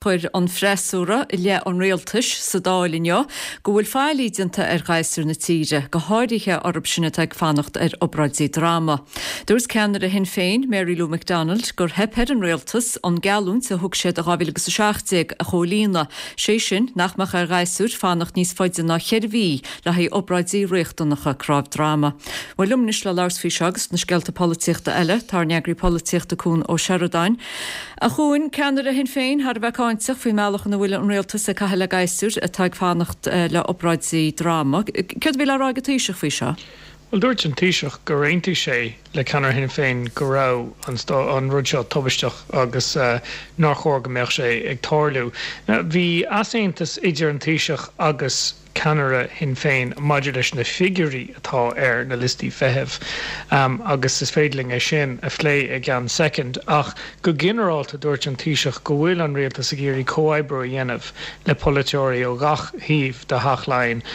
Chuir an freasúra i leith an rialtais sa Dáil inniu go bhfuil faillí déanta ar ghasúir na tíre, go háirithe orthu sin atá ag fanacht ar obráidí droma. Dúirt ceannaire Shinn Féin, Mary Lou McDonald, gur theip ar an rialtas an geallúint a thug siad i 2017 a chomhlíonadh, sé sin nach mbeadh ar ghasúir fanacht níos faide ná cheithre mhí le haghaidh obráidí riachtanacha cnámh droma. Bhuel, liom anois le labhairt faoi seo agus na scéalta polaitíochta eile, tá ár n-eagraí polaitíochta Cuan Ó Seireadáin. A Chuain, ceannaire Shinn Féin thar a bheith cáinteach faoin mbealach ina bhfuil an rialtas ag caitheamh le gasúir atá ag fanacht le obráidí droma. Céard a bhí le rá ag an Taoiseach faoi seo? Bhuel, dúirt an Taoiseach gur aontaigh sé le ceannaire Shinn Féin go raibh an rud seo tubaisteach agus nár chóir go mbeadh sé ag tarlú. Bhí easaontas idir an Taoiseach agus ceannaire Shinn Féin maidir leis na figiúirí atá ar na liostaí feithimh agus is féidir linn é sin a phlé i gceann soicind ach go ginearálta dúirt an Taoiseach go bhfuil an rialtas ag iarraidh comhoibriú a dhéanamh le polaiteoirí ó gach thaobh de Theach Laighean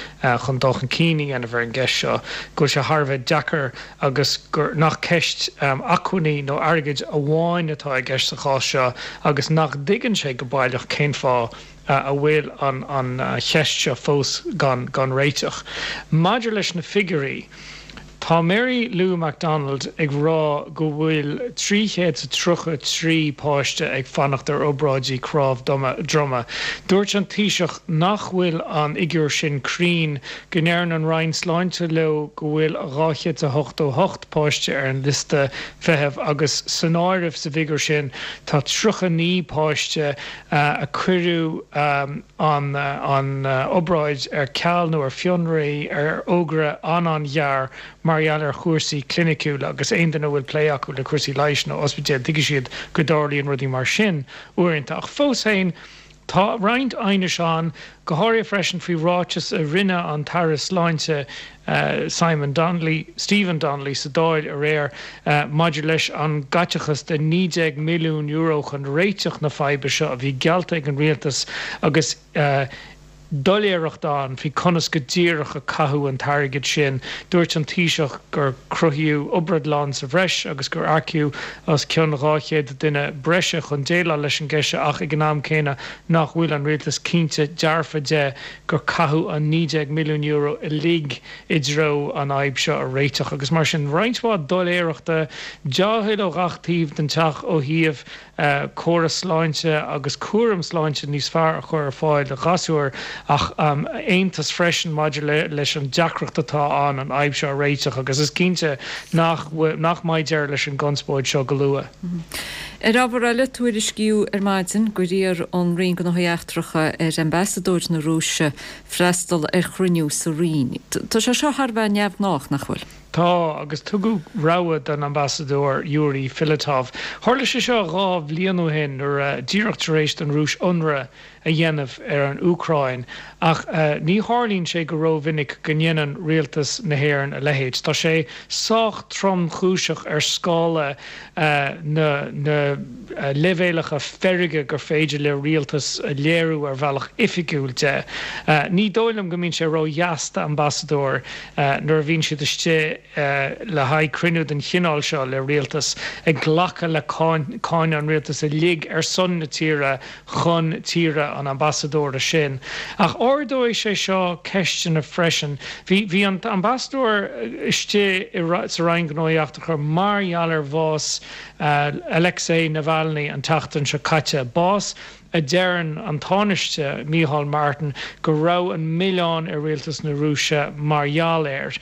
chun dul chun cinn a dhéanamh ar an gceist seo, go bhfuil sé thar a bheith deacair agus gur nach ceist acmhainní nó airgid amháin atá i gceist sa chás seo agus nach dtuigeann sé go baileach cén fáth a bhfuil an cheist seo fós gan réiteach. Maidir leis na figiúirí, tá Mary Lou McDonald ag rá go bhfuil 333 páiste ag fanacht ar obráidí cnámh droma. Dúirt an Taoiseach nach bhfuil an fhigiúr sin cruinn, go ndeireann an Roinn Sláinte leo go bhfuil 288 páiste ar an liosta feithimh agus san áireamh sa bhfigiúr sin tá 39 páiste a cuireadh an obráid ar ceal nó ar fionraí ar fhógra an-an-ghearr mar gheall ar chúrsaí cliniciúla agus aon duine a bhfuil plé acu le cúrsaí leighis nó ospidéil tuigfidh siad go dtarlaíonn rudaí mar sin uaireanta. Ach fós féin, tá roinnt aighnis ann, go háirithe freisin faoi ráiteas a rinne an tAire Sláinte, Simon Donnelly, Stephen Donnelly sa Dáil aréir maidir leis an gcaiteachas de €19 milliún chun réiteach na faidhbe seo a bhí geallta ag an rialtas agus doiléireacht ann faoi conas go díreach a caitheadh an t-airgead sin. Dúirt an Taoiseach gur cruthaíodh obradlann sa bhreis agus gur earcaíodh os cionn 200 duine breise chun déileáil leis an gceist seo ach ag an am céanna nach bhfuil an rialtas cinnte dearfa de gur caitheadh an €19 milliún uilig i dtreo an fhadhb seo a réiteach agus mar sin roinnt mhaith doiléireachta, dea-thoil ó ghach taobh den teach ó thaobh córas sláinte agus cúram sláinte níos fearr a chur ar fáil do ghasúir ach aontas freisin maidir leis an deacracht atá ann an fhadhb seo a réiteach agus is cinnte nach nach mbeidh deireadh leis an gconspóid seo go luath. Ar ábhar eile, tuairiscíodh ar maidin gur iarr an Roinn Gnóthaí Eachtracha ar Ambasadóir na Rúise freastal ar chruinniú sa Roinn. Tá sé seo thar a bheith neamhghnách, nach bhfuil? Tá, agus tugadh rabhadh don Ambasadóir Yuri Filatov. Tharla sé seo 2 bhliain ó shin nuair a, díreach tar éis don Rúis ionradh a dhéanamh ar an Úcráin, ach ní tharlaíonn sé go rómhinic go ndéanann rialtas na hÉireann a leithéid. Tá sé sách tromchúiseach ar scála na na leibhéalacha feirge gur féidir le rialtas a léiriú ar bhealach oifigiúil de. Ní dóigh liom go mbíonn sé ródheas d'ambasadóir nuair a bhíonn siad istigh le haghaidh cruinniú den chineál seo le rialtas, ag glacadh le cáineadh an rialtais uilig ar son na tíre chun tíre an ambasadóra sin. Ach ardóidh sé seo ceisteanna freisin. Bhí bhí an t-ambasadóir istigh sa Roinn Gnóthaí Eachtracha mar gheall ar bhás Alexei Navalny an tseachtain seo caite, bás a deireann an Tánaiste Micheál Martin go raibh an milleán ar rialtas na Rúise mar gheall air.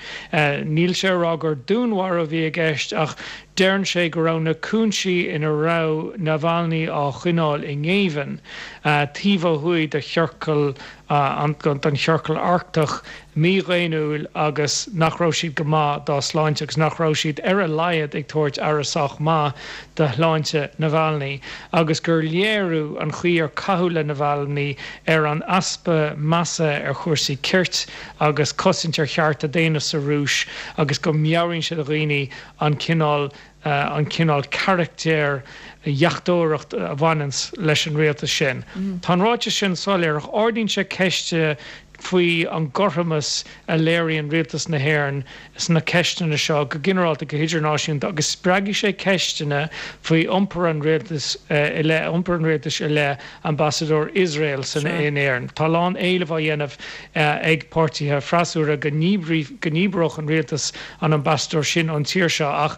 Níl sé ag rá gur dúnmharú a bhí i gceist ach Deireann sé go raibh na cúinsí ina raibh Navalny á choinneáil i ngéibheann, taobh ó thuaidh de chiorcal den Chiorcal Arctach, mídhaonnúil agus nach raibh siad go maith dá shláinte agus nach raibh siad ar a laghad ag tabhairt aire sách maith do shláinte Navalny agus gur léiriú an chaoi ar caitheadh le Navalny ar an easpa measa ar chúrsaí cirt agus cosaint ar chearta daonna sa Rúis agus go meabhraíonn sé do dhaoine an cineál an cineál carachtair dheachtóireacht a bhaineanns leis an rialtas sin. Tá an ráiteas sin soiléir ach ardaíonn sé ceist. faoi an gcothromas a léiríonn Rialtas na hÉireann sna ceisteanna seo go ginearálta, go hidirnáisiúnta agus spreagfaidh sé ceisteanna faoi iompar an rialtais i leith iompar an rialtais i leith ambasadóir Iosrael san in Éirinn. Tá a lán éileamh á dhéanamh ag páirtithe freasúra go ndíbreodh an rialtas an ambasadóir sin ón tír seo ach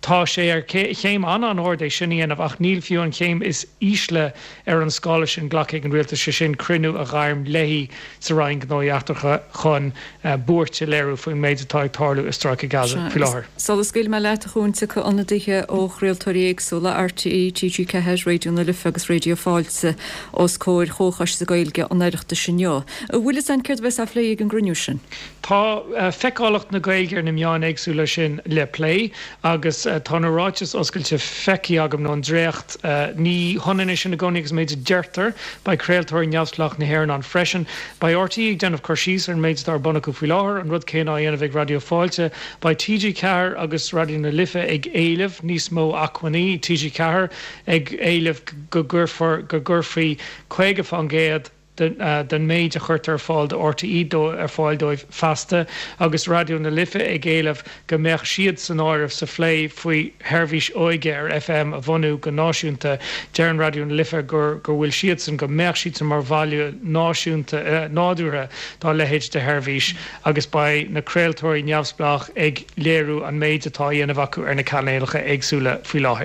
Tá sé ar chéim an-an-ard é sin a dhéanamh ach níl fiú an chéim is ísle ar an scála sin glactha ag an rialtas, sé sin cruinniú a ghairm léi sa Roinn Gnóthaí Eachtracha chun buairt a léiriú faoin méid atá ag tarlú i Stráice Gaza faoi láthair. Sula scaoilfidh mé leat, a Chuain, tiocfaidh ionadaithe ó chraoltóirí éagsúla, RTÉ, TG4, Raidió na Life agus Raidió Fáilte, os comhair Chomhchoiste Gaeilge an Oireachtais inniu. An bhfuil fhios a'inn céard a bheas á phlé ag an gcruinniú sin? Tá feiceálacht na Gaeilge ar na meáin éagsúla sin le plé agus tá na ráitis oscailte feicthe agam, nó an dréacht. Ní hionann é sin i gcónaí agus an méid a deirtear. Beidh craoltóirí neamhspleách na hÉireann ann freisin. Beidh RTÉ ag déanamh cur síos ar an méid atá ar bun acu faoi láthair, an rud céanna á dhéanamh ag Raidió Fáilte. Beidh TG4 agus Raidió na Life ag éileamh níos mó acmhainní, TG4 ag éileamh go gcuirfear, go gcuirfí 50%, den méid a chuirtear ar fáil do RTÉ ar fáil dóibh feasta, agus Raidió na Life ag éileamh go mbeadh siad san áireamh sa phlé faoi sheirbhís óige ar FM a bhunú go náisiúnta. Deireann Raidió na Life gur go bhfuil siadsan, go mbeadh siadsan mar bhaile náisiúnta nádúrtha dá leithéid de sheirbhís agus beidh na craoltóirí neamhspleách ag léiriú an méid atá á dhéanamh acu ar na cainéalacha éagsúla faoi láthair.